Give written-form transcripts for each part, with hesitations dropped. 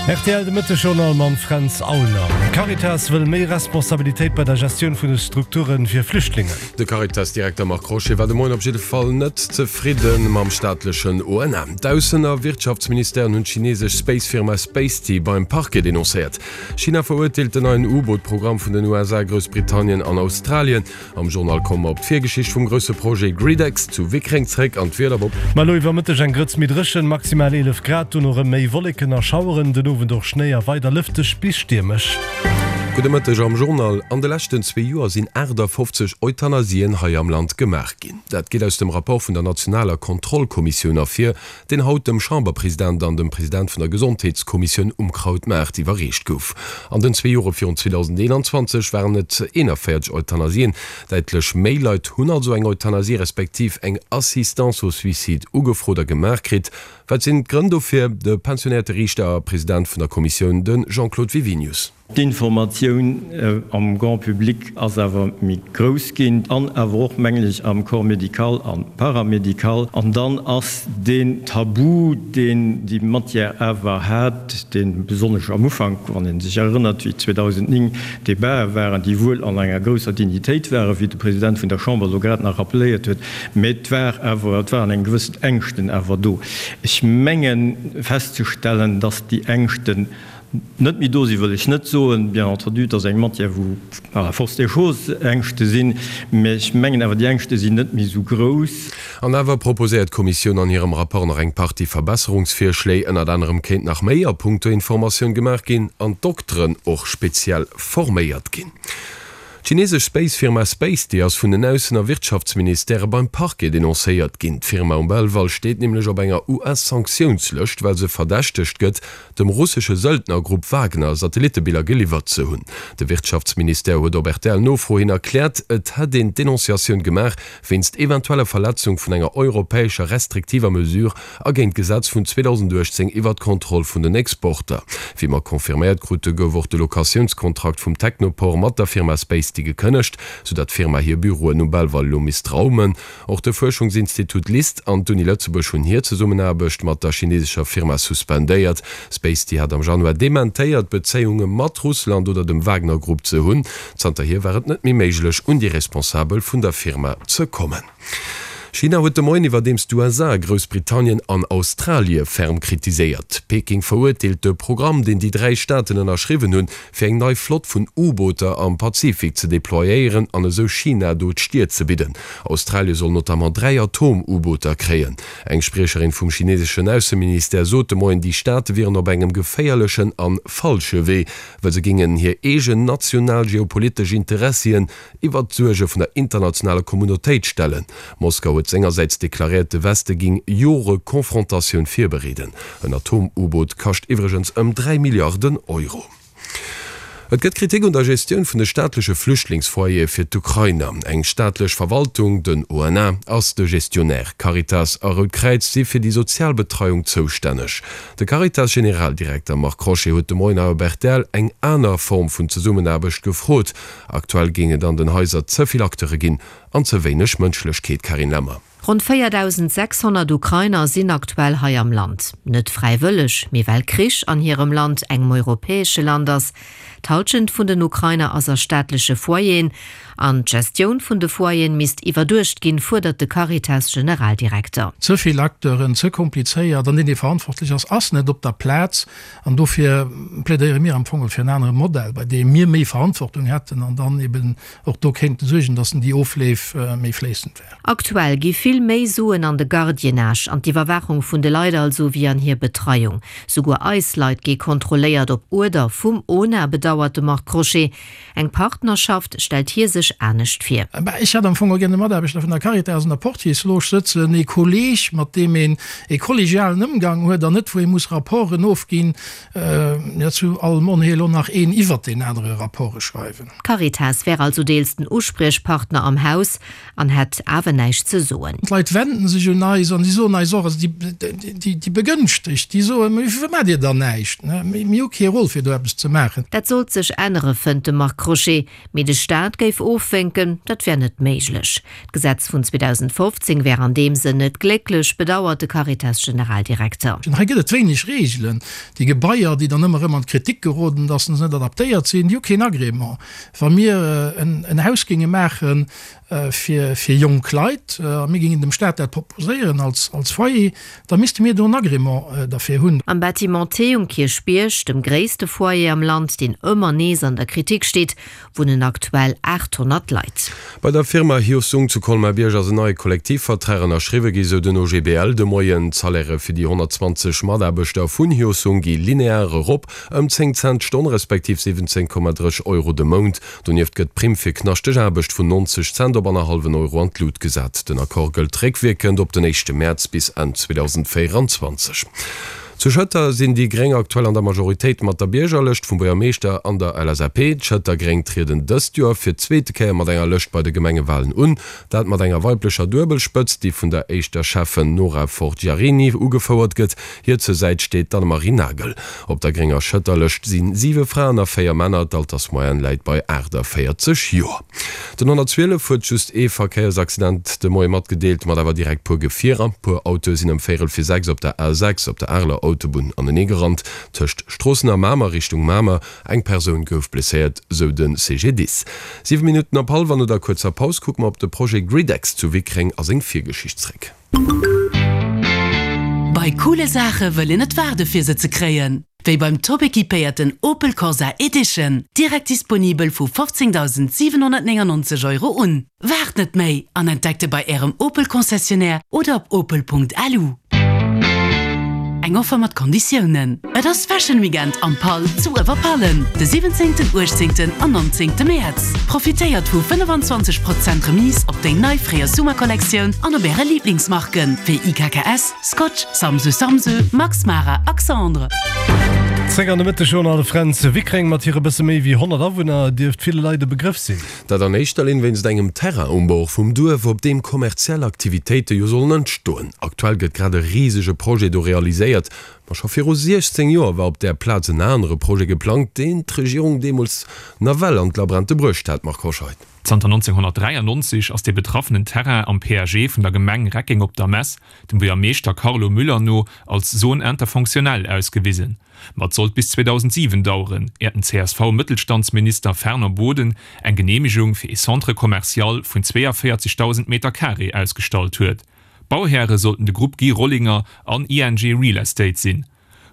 Rtl de Mëtteg-Journal mam Fränz Aulner. D'Caritas wëll méi Responsabilitéit bei der Gestioun vun de Strukture fir Flüchtlingen. De Caritas-Direkter Marc Crochet war de Moien op jidde Fall net zefridde mam staatlechen ONA. D'Aussen a Wirtschaftsministèren hunn d'chinesesch Space-Firma Spacety beim Parquet denoncéiert. China verurteelt den neien U-Boot-Programm vun den USA, Groussbritannien an Australien. Am Journal komme mer op d'Virgeschicht vum grousse Projet GridEx zu Wickreng zréck an d'Wieder op. Ma elo iwwer Mëtteg eng Grëtz méi dréchen, maximal 11 Grad, dono rëm méi Wolleken a Schaueren, den Owend och Schnéi a weider lëfteg bis stiermesch. Gudde Mëtteg am Journal. An de leschten zwee Joer sinn 58 Euthanasien hei am Land gemaach ginn. Dat geet aus dem Rapport vun der nationaler Kontrollkommissioun ervir, deen haut dem Chamberpresident an dem President vun der Gesondheetskommissioun um Krautmaart iwwerreecht gouf. An den zwee Jore virun 2021 waren et 41 Euthanasien. Däitlech méi Leit hunn also eng Euthanasie respektiv eng Assistance au suicide ugefrot a gemaach kritt. Wat sinn d'Grënn dofir? De pensionéierte Riichter a President vun der Kommissioun, de Jean-Claude Wiwinius. D'Informatioun am Grand public ass awer méi grouss ginn an awer och, mengen ech, am Corps médical a paramédical. An dann ass deen Tabu, deen déi Matière awer hat, dee besonnesch am Ufank, wann ee sech erënnert, wéi 2009 d'Debatë waren, déi wuel an enger grousser Dignitéit waren, wéi de President vun der Chamber elo grad nach rappeléiert huet, mä et war awer, et waren eng gewëssen Ängschten awer do. Ech menge festzestellen, dass déi Ängschten Net méi do sinn, wëll ech net soen. Bien entendu, et ass eng Matière, wou par la force des choses Ängschte sinn, mä ech mengen awer, déi Ängschte sinn net méi esou grouss. An awer proposéiert d'Kommissioun an hirem Rapport nach eng Partie Verbesserungsvirschléi. Ënnert anerem kéint nach méi a punkto Informatioun gemaach ginn an d'Dokteren och speziell forméiert ginn. D'chinesesch Space-Firma Spacety ass vun den Aussen a Wirtschaftsministèrë beim Parquet denoncéiert ginn. D'Firma um Belval steet nämlech op enger US-Sanktiounslëscht, well se verdächtegt gëtt, dem russesche Söldnergrupp Wagner Satellittebiller geliwwert ze hunn. De Wirtschaftsministère huet op RTL-Nofro hin erkläert, et hätt een d'Denonciatioun gemaach wéinst eventueller Verletzung vun enger europäescher restriktiver Mesure a géint d'Gesetz vun 2018 iwwer d'Kontroll vun den Exporter. Wéi mer confirméiert krute gouf och de Locatiounskontrakt vum Technoport mat der Firma Spacety gekënnegt, soudatt d'Firma hir Büroen um Belval elo misst raumen. Och de Fuerschungsinstitut LIST an d'Uni Lëtzebuerg hunn hir Zesummenaarbecht mat der chinesescher Firma suspendéiert. Spacety hat am Januar dementéiert, Bezéiunge mat Russland oder dem Wagner-Grupp ze hunn. Zanterhier war et net méi méiglech, un déi Responsabel vun der Firma ze kommen. China huet de Moien iwwerdeems d'USA, Groussbritannien an Australie ferm kritiséiert. Peking verurteelt de Programm, deen déi 3 Staaten ënnerschriwwen hunn, fir eng nei Flott vun U-Booter am Pazifik ze deployéieren an esou China do d'Stier ze bidden. Australie soll notamment 3 Atom-U-Booter kréien. Eng Spriecherin vum chineseschen Ausseministère sot de Moien, déi Staate wieren op engem geféierlechen an falsche Wee, well se géingen hir eegen national geopolitesch Interessien iwwert d'Suerge vun der internationaler Communautéit stellen. Moskau huet sengersäits deklaréiert, de Weste géing Jore Confrontatioun virbereeden. En Atom-U-Boot kascht iwwregens ëm 3 Milliarden Euro. Et gëtt Kritik un der Gestioun vun de staatleche Flüchtlingsfoyere fir d'Ukrainer. Eng staatlech Verwaltung, den ONA, ass de Gestionnaire. Caritas a Rout Kräiz si fir déi sozial Betreiung zoustänneg. De Caritas-Generaldirekter Marc Crochet huet de Moien hei op rtl eng aner Form vun Zesummenaarbecht gefrot. Aktuell géing et an den Haiser ze vill Acteure ginn an ze wéineg Mënschlechkeet, Carine Lemmer. Ronn 4.600 Ukrainer sinn aktuell hei am Land. Net fräiwëlleg, mee well Krich an hirem Land, engem europäesche Land ass. D'Hallschent vun den Ukrainer ass a staatleche Foyeren. An d'Gestioun vun de Foyeren misst iwwerduecht ginn, fuerdert de Caritas-Generaldirekter. Ze vill Acteuren, ze komplizéiert an deen, dee verantwortlech ass, ass net op der Plaz. An dofir plädéiere mir am Fong fir en anere Modell, bei deem mir méi Verantwortung hätten an dann eben och do kéinte suergen, dass déi Ofleef méi fléissend wären. Aktuell gi vill méi Suen an de Gardiennage, an d'Iwwerwaachung vun de Leit also, wéi an hir Betreiung. Souguer eis Leit gi kontrolléiert, op Uerder vum ona, bedauert de Marc Crochet. Eng Partnerschaft stellt hie sech anescht vir. Ech hätt am Fong och gär de Mataarbechter vun der Caritas an der Portiersloge sëtzen, ee Kolleg, mat deem een ee kollegialen Ëmgang huet an net wou ee muss Rapporten ofginn, jo zu allem Onheel och nach een iwwert deen anere Rapporte schreiwen. D'Caritas wär also deels den Uspriechpartner am Haus an hätt awer näischt ze soen. D'Leit wenden sech un eis an déi soen eis och, also déi Begënschtegt, déi soen, Mee firwat maacht Dir dann näischt? Mir hu kee Rôle fir do eppes ze maachen. Dat sollt sech ännere fënnt de Marc Crochet. Mee de Staat géif ofwénken, dat wär net méiglech. D'Gesetz vun 2015 wär an deem Sënn net glécklech, bedauert de Caritas-Generaldirekter. Hei gëtt et wéineg Reegelen. Déi Gebaier, déi dann ëmmer erëm an d'Kritik geroden, datt se net adaptéiert sinn, déi hu keen Agrément. Wa mir en Haus géinge maachen fir jonk Leit a mir géingen dem Staat dat proposéieren als Foyer, da misste mir do en Agrément derfir hunn. Am Bâtiment T um Kierchbierg, dem gréisste Foyer am Land, deen ëmmer nees an der Kritik steet, wunnen aktuell 800 Leit. Bei der Firma Hyosung zu Colmar-Bierg ass en neie Kollektivvertrag ënnerschriwwe gi, sou den OGBL de Moien. D'Salairë fir déi 120 Mataarbechter vun Hyosung gi linear erop, ëm 10 Cent d'Stonn, respektiv 17,3 Euro de Mount. Donieft gëtt d'Primm fir knaschteg Aarbecht vun 90 Cent op annerhallwen Euro an d'Lut gesat. Den Accord gëllt réckwierkend op den éischte Mäerz bis Enn 2024. Zu Schëtter sinn déi Gréng aktuell an der Majoritéit mat der Biergerlëscht vum Buergermeeschter an der LSAP. D'Schëtter Gréng trieden dëst Joer fir d'zweete Kéier mat enger Lëscht bei de Gemengewalen un. Dat mat enger weiblecher Duebelspëtzt, déi vun der éischter Schäffen Nora Forgiarini ugefouert gëtt. Hir zur Säit steet d'Annemarie Nagel. Op der grénger Schëtterlëscht si 7 Fraen a 4 Männer, d'Altersmoyenne läit bei 48 Joer. Den 112 huet just ee Verkéiersaccident de Moie matgedeelt, mat awer direkt puer Gefierer. Puer Autoe sinn ëm véierel fir 6 op der A6 op der Areler Autobunn aneneegerannt, tëscht Stroossen a Mamer Richtung Mamer. Eng Persoun gouf blesséiert, sou de CGDIS. 7 Minutten op hallwer. No der kuerzer Paus kucke mer op de Projet GridEx zu Wickreng a seng Virgeschicht zréck. Bei coole Saache wëll een net waarde fir se ze kréien. Wéi beim top equipéierten Opel Corsa Edition, direkt disponibel vu 15.799 Euro un. Waart net méi an entdeckt e bei Ärem Opel Concessionnaire oder op opel.lu. Eng Offer mat Konditiounen. Et ass Fashion Weekend am Pall zu Uewerpallen de 17, 18 an 19 Mäerz. Profitéiert vu 25 Prozent Remise op déi nei Fréijoers Summer Kollektioun an op äre Liiblingsmarken wéi IKKS, Scotch, Samsö Samsö, Max Mara a Xandre. Zréck an de Mëtteg un alle Fränz. Wickreng mat hire bësse méi wéi 100 Awunner dierft ville Leit e Begrëff sinn. Dat an éischter Linn wéinst engem Terrain um Bord vum Duerf, op deem kommerziell Aktivitéite jo sollen entstoen. Aktuell gëtt grad e risege Projet do realiséiert. Ma scho viru 16 Joer war op där Plaz en anere Projet geplangt, deen d'Regierung deemools nawell an d'Labrente bruecht hat. Marc Hoscheid. Zanter 1993 ass dee betraffenen Terrain am PAG vun der Gemeng Reckeng op der Mess, dem Buergermeeschter Carlo Müller no, als Zone interfonctionnelle ausgewisen. Ma et sollt bis 2007 daueren, äert den CSV-Mëttelstandsminister Fernand Boden eng Geneemegung fir ee Centre commercial vun 42.000 Meter carré ausgestallt huet. Bauhäre sollten de Grupp Guy Rollinger an ING Real Estate sinn.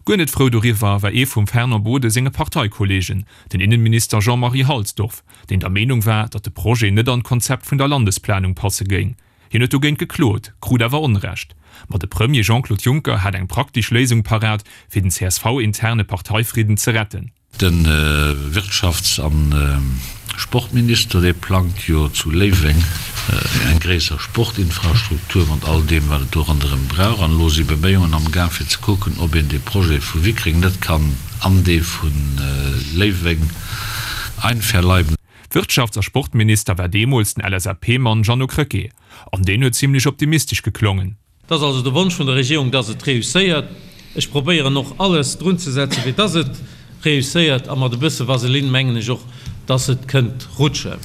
Guer net frou doriwwer war ee vum Fernand Boden senge Parteikollegen, den Innenminister Jean-Marie Halsdorf, deen der Meenung war, datt de Projet net an d'Konzept vun der Landesplanung passe géing. Hien huet dogéint geklot, krut awer Onrecht. Ma de Premier Jean-Claude Juncker hat eng praktesch Léisung parat, fir den CSV-interne Parteifridden ze retten. De Wirtschafts a Sportminister, dee plangt jo zu Léiweng eng gréisser Sportinfrastruktur mat all deem, wat et do ronderëm brauch. An elo si Beméiungen am Gaang, fir ze kucken, ob een dee Projet vu Wickreng net kann an dee vu Léiweng einverleiben. Wirtschafts a Sportminister war deemools den LSAP-Mann Jeannot Krecké, an deen huet zimlech optimistesch geklongen. Et ass also de Wonsch vun der Regierung, dass et réusséiert. Ech probéieren och alles drunzesetzen, fir dass et réusséiert, a mat e bësse Vaseline mengen ech och, dass et kënnt rutschen.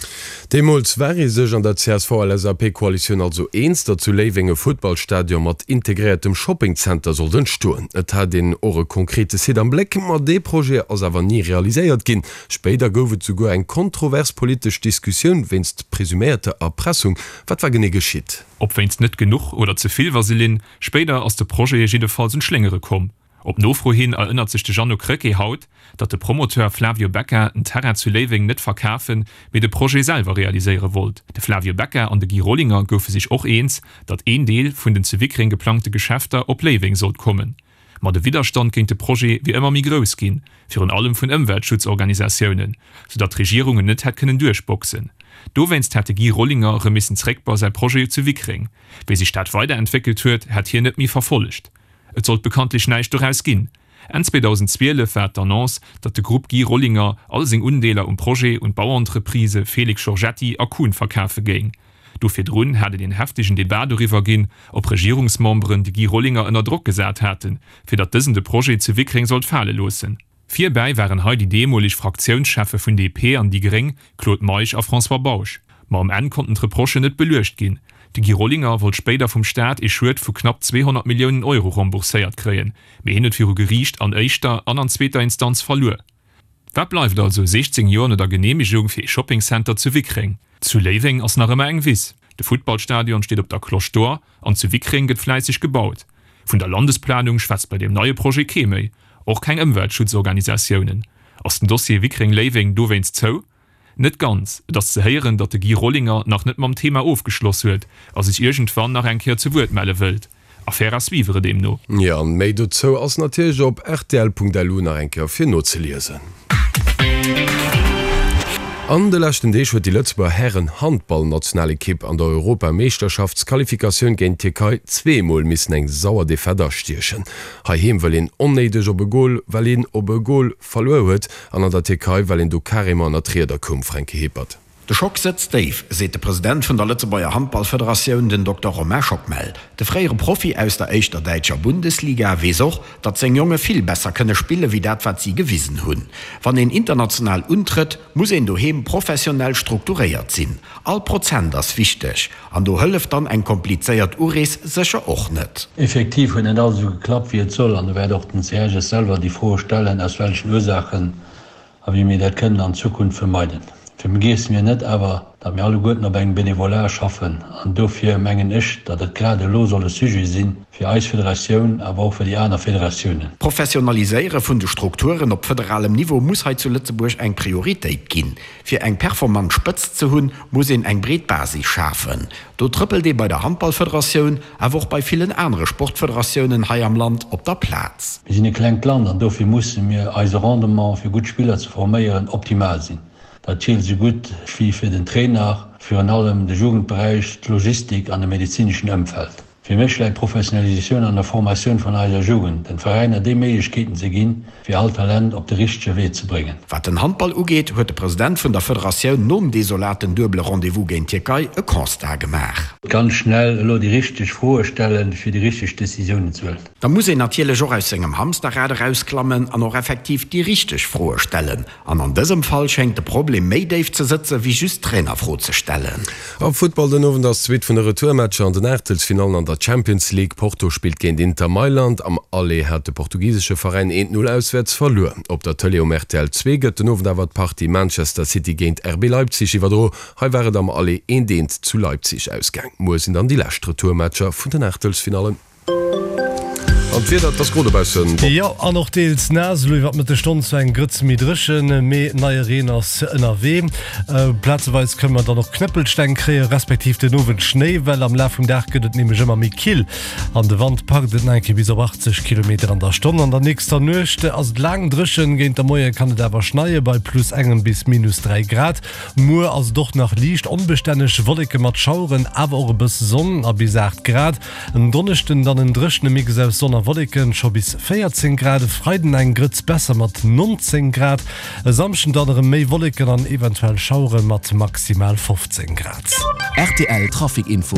Deemools war ee sech an der CSV-LSAP-Koalitioun also eens, datt zu Léiweng e Futtballstadion mat integréiertem Shoppingzenter sollt entstoen. Et hat een och e konkrete Site am Bléck, ma dee Projet ass awer ni realiséiert ginn. Spéider gouf et souguer eng kontrovers politesch Diskussioun wéinst presuméierter Erpressung. Wat war genee geschitt? Ob wéinst net genuch oder ze vill Vaseline, spéider ass de Projet jiddefalls un d'Schléngere komm. Op Nofro hin erënnert sech de Jeannot Krecké haut, datt de Promoteur Flavio Becca den Terrain zu Léiweng net verkafen, mee de Projet selwer realiséiere wollt. De Flavio Becca an de Guy Rollinger goufe sech och eens, datt een Deel vun den zu Wickreng geplangte Geschäfter op Léiweng sollt kommen. Ma de Widderstand géint de Projet wier ëmmer méi grouss ginn, virun allem vun Ëmweltschutzorganisatiounen, sou datt d'Regierung en net hätt kënnen duerchboxen. Dowéinst hätt de Guy Rollinger erëm missen zréck bei säi Projet zu Wickreng. Wéi sech dat weiderentwéckelt huet, hätt hien net méi verfollegt. Et sollt bekanntlech näischt doraus ginn. Enn 2012 war et d'Annonce, datt de Grupp Guy Rollinger all seng Undeeler um Projet un d'Bauentreprisë Félix Giorgetti a Kuhn verkafe géing. Do virdrun hat et een heftegen Debat doriwwer ginn, ob Regierungsmemberen de Guy Rollinger ënner Drock gesat haten, fir datt dësen de Projet zu Wickreng sollt fale loossen. Virbäi waren hei déi deemoleg Fraktiounscheffe vun DP an déi Gréng, Claude Meisch a François Bausch. Ma um Enn konnten d'Reprochen net beluecht ginn. De Guy Rollinger wollt spéider vum Staat ee Schued vu knapp 200 Milliounen Euro rembourséiert kréien, mee hien huet viru Geriicht an éischter an an zweeter Instanz verluer. Wat bleift also 16 Joer no der Geneemegung fir ee Shoppingcenter zu Wickreng? Zu Léiweng ass nach ëmmer eng Wiss, de Futtballstadion steet op der Cloche d'Or an zu Wickreng gëtt fläisseg gebaut. Vun der Landesplanung schwätzt bei deem neie Projet kee méi, och keng Ëmweltschutzorganisatiounen. Ass den Dossier Wickreng-Léiweng dowéinst zou? Net ganz. Et ass ze héieren, datt de Guy Rollinger nach net mam Thema ofgeschloss huet a sech iergendwann nach eng Kéier zu Wuert melle wëllt. Affaire à suivre deemno. Jo, an méi dozou ass natierlech op rtl.lu nach eng Kéier fir nozeliesen. An de leschten Deeg huet déi Lëtzebuerger Hären-Handball-Nationalekipp an der Europameeschterschaftsqualifikatioun géint d'Tierkei zweemol missen eng sauer Defaite astiechen. Heiheem wëll een onnéideg op e Gol, well een op e Gol verluer huet an an der Tierkei well een do carrément ënner d'Rieder koum, Fränki Hepert. De Schock sëtzt déif, seet de President vun der Lëtzebuerger Handballfederatioun, den Dokter Romain Schockmel. De fréiere Profi aus der éischter däitscher Bundesliga weess och, datt seng Jonge vill besser kënne spille wéi dat wat si gewisen hunn. Wann een international untrëtt, muss een doheem professionell strukturéiert sinn. All Prozent ass wichteg an do hëlleft dann eng komplizéiert Urees sécher och net. Effektiv huet net alles esou geklappt wéi et soll an do wäert och den CHS selwer déi Froe stellen, aus welchen Ursaachen a wéi mir dat kënnen an Zukunft vermeiden. Vergiesse mir net awer, datt mir alleguerten op engem Bénévolat schaffen an dofir mengen ech, datt et grad elo soll e Sujet si fir eis Federatioun, awer och fir déi aner Federatiounen. D'Professionaliséiere vun de Strukturen op federalem Niveau muss hei zu Lëtzebuerg eng Prioritéit ginn. Fir eng performant Spëtzt ze hunn, muss een eng breet Basis schafen. Do trëppelt ee bei der Handballfederatioun, awer och bei villen anere Sportfederatiounen hei am Land op der Plaz. Mir sinn e klengt Land an dofir musse mir eise Rendement fir gutt Spiller ze forméieren optimal sinn. Dat zielt esou gutt wéi fir den Trainer, virun allem de Jugendberäich, d'Logistik an de medezineschen Ëmfeld. Fir mech läit d'Professionalisatioun an der Formatioun vun eiser Jugend, den Veräiner déi Méiglechkeeten ze ginn, fir all Talent op de richtege Wee ze bréngen. Wat den Handball ugeet, huet de President vun der Federatioun nom desolaten duebele Rendez-vous géint d'Tierkei e Constat gemaach. Ganz schnell elo déi richteg Froe stellen, fir déi richteg Decisiounen ze huelen. Da muss een natierlech och aus sengem Hamsterrad erausklammen an och effektiv déi richteg Froe stellen. An an dësem Fall schéngt de Problem méi déif ze sëtze wéi just d'Trainerfro ze stellen. Am Futtball den Owend ass d'Suite vun de Retourmatcher an den Aachtelsfinallen an der Champions League. Porto spillt géint Inter Mailand. Am Aller hat de portugisesche Veräin 1, 0 auswäerts verluer. Op der Tëlee um rtl 2 gëtt den Owend awer d'Partie Manchester City géint RB Leipzig iwwerdro. Hei war et am Aller 1, 1 zu Leipzig ausgaang. Muer sinn dann déi lescht Retourmatcher vun den Aachtelsfinallen. An d'Wieder, et ass gro dobaussen. Jo, an och deels naass. Elo iwwer d'Mëttesstonn zwar eng Grëtz méi dréchen, mee neie Reen ass ënnerwee. Plazeweis kënne mer dann och Knëppelsteng kréien, respektiv den Owend Schnéi, well am Laf vum Dag gëtt et nämlech ëmmer méi kill an de Wand packt et nach eng Kéier bis op 80 Kilometer an der Stonn. An der nächster Nuecht ass et laang dréchen, géint der Moie kann et awer schneie bei plus engem bis minus 3 Grad. Muer ass et och nach liicht onbestänneg, Wolleke mat Schaueren, awer och e bësse Sonn a bis 8 Grad. En Donneschden dann en dréchene Mix aus Sonn a Wolleken, scho bis 14 Grad, e Freiden eng Grëtz besser mat 19 Grad, e Samschden dann erëm méi Wolleken an eventuell Schauere mat maximal 15 Grad. Rtl Trafic Info.